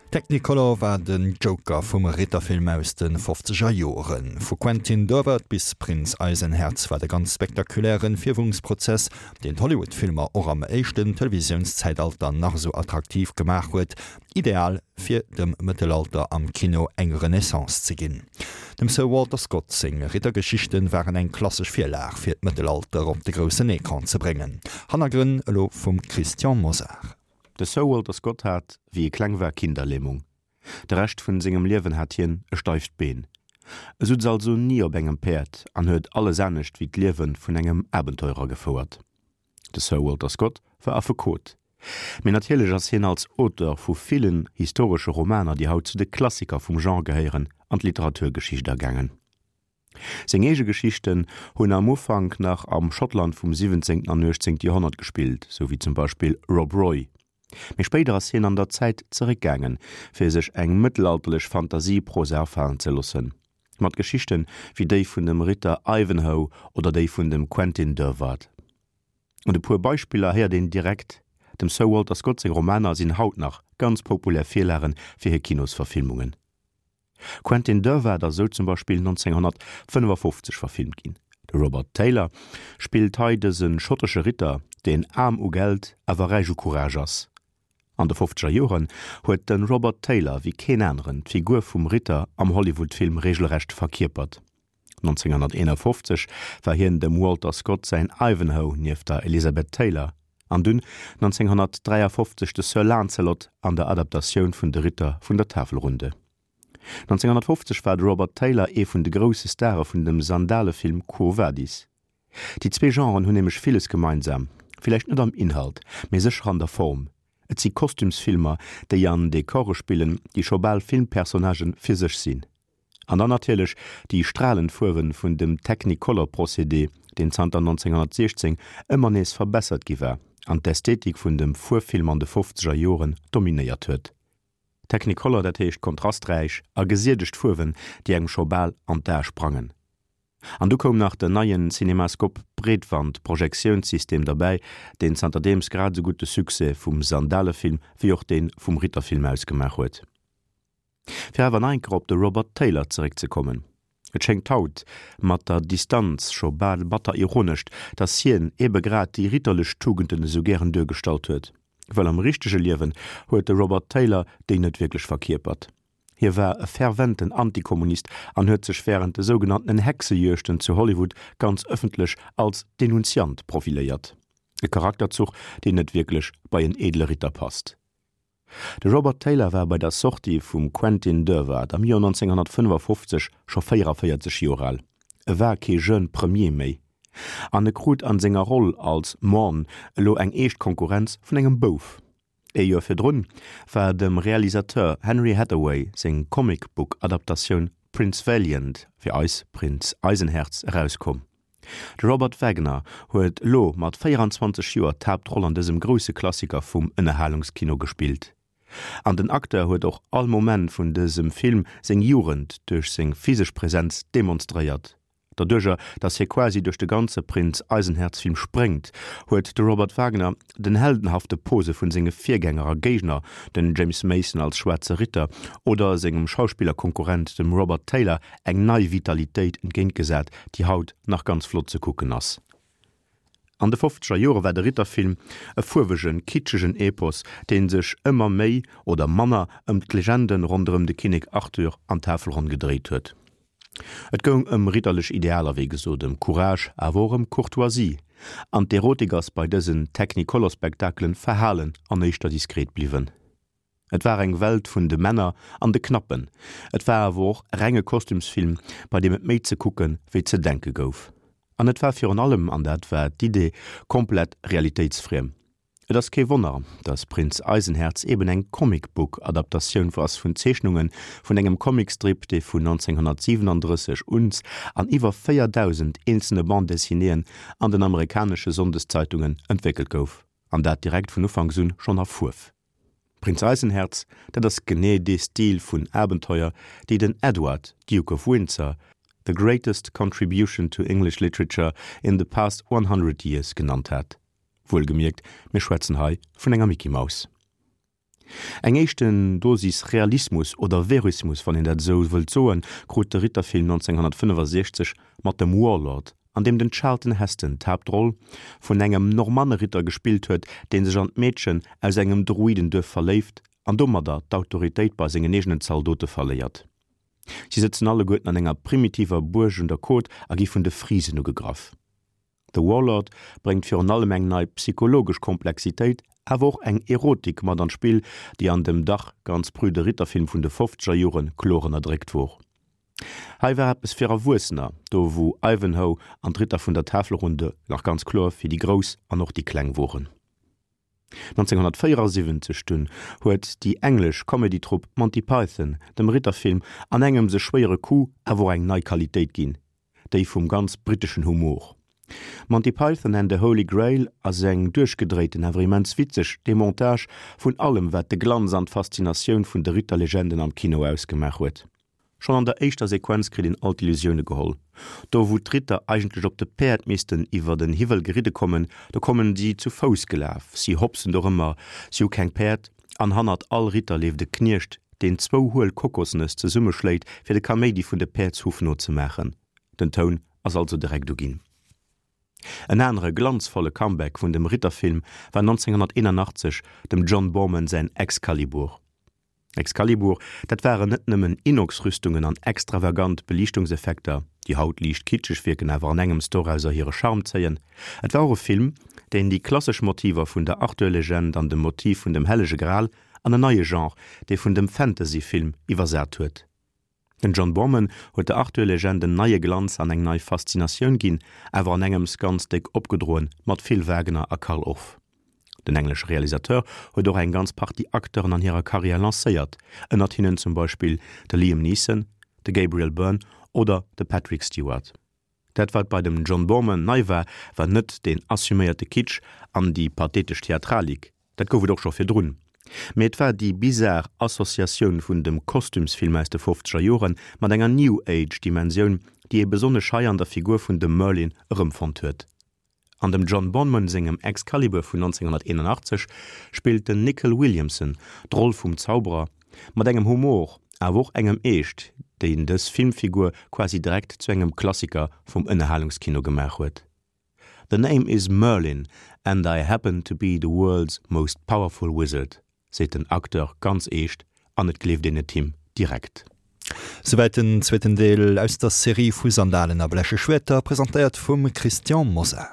Technicolor war den Joker vum Ritterfilm aus de fofzeger Joren. Vu Quentin Durward bis Prinz Eisenherz war de ganz spektakulären Fierwungsprozess, deen d'Hollywood-Filmer och am éischten Televisiounszäitalter nach esou attraktiv gemaach huet, ideal fir dem Mëttelalter am Kino eng Renaissance ze ginn. Dem Sir Walter Scott seng Rittergeschichten waren eng klassesch Virlag fir d'Mëttelalter op de groussen Ecran ze bréngen. Hannergrënn elo vum Christian Mosar. De Sir Walter Scott hat, wéi e kleng war, Kinderlämung. De Rescht vun sengem Liewen hat hien e steift Been. E sutz also ni op engem Päerd an huet alles anescht wéi d'Liewe vun engem Abenteurer gefouert. De Sir Walter Scott war Affekot. Mee natierlech ass hien als Auteur vu villen historesche Romaner, déi haut zu de Klassiker vum Genre gehéieren, an d'Literaturgeschicht agaangen. Seng eege Geschichten hunn am Ufank nach am Schottland vum 17. an 18. Joerhonnert gespillt, sou wéi zum Beispill Rob Roy. Mee spéider ass hien an der Zäit zeréckgaangen, fir sech eng mëttelalterlech Fantasieprosa afalen ze loossen, mat Geschichten wéi déi vun dem Ritter Ivanhoe oder déi vun dem Quentin Durward. Un e puer Beispiller héiert een direkt, Dem Sir Walter Scott seng Romaner sinn haut nach ganz populär Virlage fir hir Kinosverfilmungen. Quentin Durward ass esou zum Beispill 1955 verfilmt ginn. De Robert Taylor spillt hei dëse schottesche Ritter, deen aarm u Geld, awer räich u Courage ass. An de fofzeger Joren huet de Robert Taylor wéi keen aneren d'Figur vum Ritter am Hollywood-Film regelrecht verkierpert. 1951 war hien dem Walter Scott säin Ivanhoe nieft der Elizabeth Taylor an dunn 1953 de Sir Lancelot an der Adaptatioun vun De Ritter vun der Tafelrunde. 1950 war de Robert Taylor ee vun de grousse Stare vun dem Sandalefilm Quo Vadis. Déi zwee Genren hunn nämlech villes gemeinsam, villäicht net am Inhalt, mee sécher an der Form, Et si Kostümsfilmer, déi an Dekore spillen, déi scho bal Filmpersonnagë fir sech sinn. An dann natierlech déi stralend Fuerwe vun dem Technicolor-Procédé, deen zanter 1916 ëmmer nees verbessert gi war an d'Ästhetik vun dem Fuerffilm an de fofzeger Joren dominéiert huet. Technicolor, dat heescht kontrasträich a gesiedegt Fuerwen, déi engem scho bal an d'Ae sprangen. An du koum nach den neien Cinemascope-Breetwand-Projektiounssystem derbäi, deen zanterdeems grad esou gutt de Succès vum Sandalefilm wéi och dee vum Ritterfilm ausgemaach huet. Fir awer nach eng Kéier op de Robert Taylor zeréckzekommen, Et schéngt haut, mat der Distanz, scho bal batter ironescht, datt hien ebe grad déi ritterlech Tugenden esou gären duergestallt huet. Well am richtege Liewen huet de Robert Taylor déi net wierklech verkierpert. Hie war e ferventen Antikommunist an huet sech wärend de sougenanntenen Hexejuegten zu Hollywood ganz ëffentlech als Denunziant profiléiert. E Charakterzuch, deen net wierklech bei en edle Ritter passt. De Robert Taylor war bei der Sortie vum Quentin Durward am Joer 1955 scho 44 Joer al. E war kee jeune Premier méi. An e krut an senger Roll als Morn elo eng eescht Konkurrenz vun engem Bouf. Ee Joer virdrun war dem Realisateur Henry Hathaway seng Comic-Book-Adaptatioun Prince Valiant, fir eis Prinz Eisenherz, erauskomm. De Robert Wagner huet elo mat 24 Joer d'Haaptroll an dësem grousse Klassiker vum Ënnerhalungskino gespillt. An den Acteur huet och all Moment vun dësem Film seng Jugend duerch seng physesch Presenz demonstréiert. Doduercher, datt hie quasi duerch de ganze Prinz Eisenherz-Film spréngt, huet de Robert Wagner den heldenhafte Pose vun senge Virgänger a Géigner, den James Mason als Schwaarze Ritter oder sengem Schauspillerkonkurrent, dem Robert Taylor, eng nei Vitalitéit entgéintgesat, déi haut nach ganz flott ze kucken ass. An de fofzeger Jore war de Ritterfilm e fuerwegen, kitschegen Epos, dee sech ëmmer méi oder manner ëm d'Legende ronderëm de Kinnek Arthur an d'Tafelronn gedréit huet. Et goung ëm ritterlech Idealer, wéi gesot, ëm Courage, awer och ëm Courtoisie. An d'Erotik ass bei dësen Technicolor-Spektakelen verhalen an éischter diskret bliwwen. Et war eng Welt vun de Männer an de Knappen. Et war awer och renge Kostümsfilm, bei deem et méi ze kucke wéi ze denke gouf. An et war virun allem, an dat war d'Idee, komplett realitéitsfriem. Et ass kee Wonner, datt Prinz Eisenherz eben eng Comic-Book-Adaptatioun ass vun Zeechnunge vun engem Comicstrip, dee vun 1937 un an iwwer 4.000 eenzelne Bande-dessinéeën an den amerikanesche Sonndeszeitungen entwéckelt gouf, an dat direkt vun Ufanks un schonn a Fuerf. Prinz Eisenherz, dat ass genee dee Stil vun Abenteuer, déi den Edward, Duke of Windsor, the greatest contribution to English literature in the past 100 years genannt hat. Wuelgemierkt, mir schwätzen hei vun enger Micky Maus. Eng éischten Dosis Realismus oder Verismus, wann een dat esou wëllt soen, krut de Ritterfilm 1965 mat dem Warlord, an deem den Charlton Heston d'Haaptroll vun engem Normanneritter gespillt huet, dee sech an d'Meedchen aus engem Druidenduerf verléift an domadder d'Autoritéit bei sengen eegenen Zaldote verléiert. Si sëtzen alleguerten an enger primitiver Buerg un der Côte a gi vun de Frisen ugegraff. The Warlord bréngt virun allem eng nei psychologesch Komplexitéit, awer och eng Erotik mat an d'Spill, déi an dem dach ganz prüde Ritterfilm vun de fofzeger Jore kloer ënnerdréckt wor. Hei war eppes fir Erwuessener, do wou Ivanhoe an d'Ritter vun der Tafelrunde nach ganz kloer fir déi Grouss an och déi Kleng woren. 1974 dunn huet déi englesch Comedy-Trupp Monty Python dem Ritterfilm an engems e schwéiere Coup awer och eng nei Qualitéit ginn, déi vum ganz britteschen Humor. Monty Python and the Holy Grail ass eng duerchgedréiten awer immens witzeg Demontage vun allem wat de Glanz an d'Faszinatioun vun de Ritterlegenden am Kino ausgemaach huet. Schonn an der éischter Sequenz kritt een all d'Illusioune geholl. Do wou d'Ritter eigentlech op de Päerd missten iwwer en Hiwwel geridde kommen, do kommen si zu Fouss gelaf. Si hopsen dorëmmer, si hu keng Päerd an hannert all Ritter leeft e Kniecht, deen zwou huel Kokosnëss zesummeschléit fir de Kaméidi vun de Päerdshuff nozemaachen. Den Toun ass also direkt uginn. En anere glanzvolle Comeback vun dem Ritterfilm war 1981 dem John Boorman säin Excalibur. Excalibur, dat waren net nëmmen Inox-Rüstungen an extravagant Beliichtungseffekter, déi haut liicht kitscheg wierken, awer an engems dorauser hire Charme zéien. Et war och e Film, deen déi klassesch Motiver vun der Arthur-Legend an dem Motiv vun dem Hellege Gral an en neie Genre, dee vun dem Fantasy-Film, iwwersat huet. Den John Boorman huet der Arthur-Legend en neie Glanz an eng nei Faszinatioun ginn, awer an engems ganz déck opgedroen, mat vill Wagner a Carl Orff. Den englesche Realisateur huet och eng ganz Partie Acteuren an hirer Karriär lancéiert, ënnert hinnen zum Beispill de Liam Neeson, de Gabriel Byrne oder de Patrick Stewart. Dat wat bei dem John Boorman nei war, war net deen assuméierte Kitsch an déi pathetesch Theatralik, dat gouf et och scho virdrun, mee et war déi bizar Associatioun vun dem Kostümsfilm aus de fofzeger Jore mat enger New Age Dimensioun, déi ee besonnesch hei an der Figur vun dem Merlin erëmfonnt huet. An dem John Boorman sengem Excalibur vun 1981 spillt den Nicol Williamson d'Roll vum Zauberer mat engem Humor, awer och engem Eescht, deen dës Filmfigur quasi direkt zu engem Klassiker vum Ënnerhalungskino gemaach huet. The name is Merlin and I happen to be the world's most powerful wizard. Seet den Acteur ganz eescht an et gleeft een et him direkt. Souwäit den zweeten Deel aus der Serie vu Sandalen a bleche Schwäerter, presentéiert vum Christian Mosar.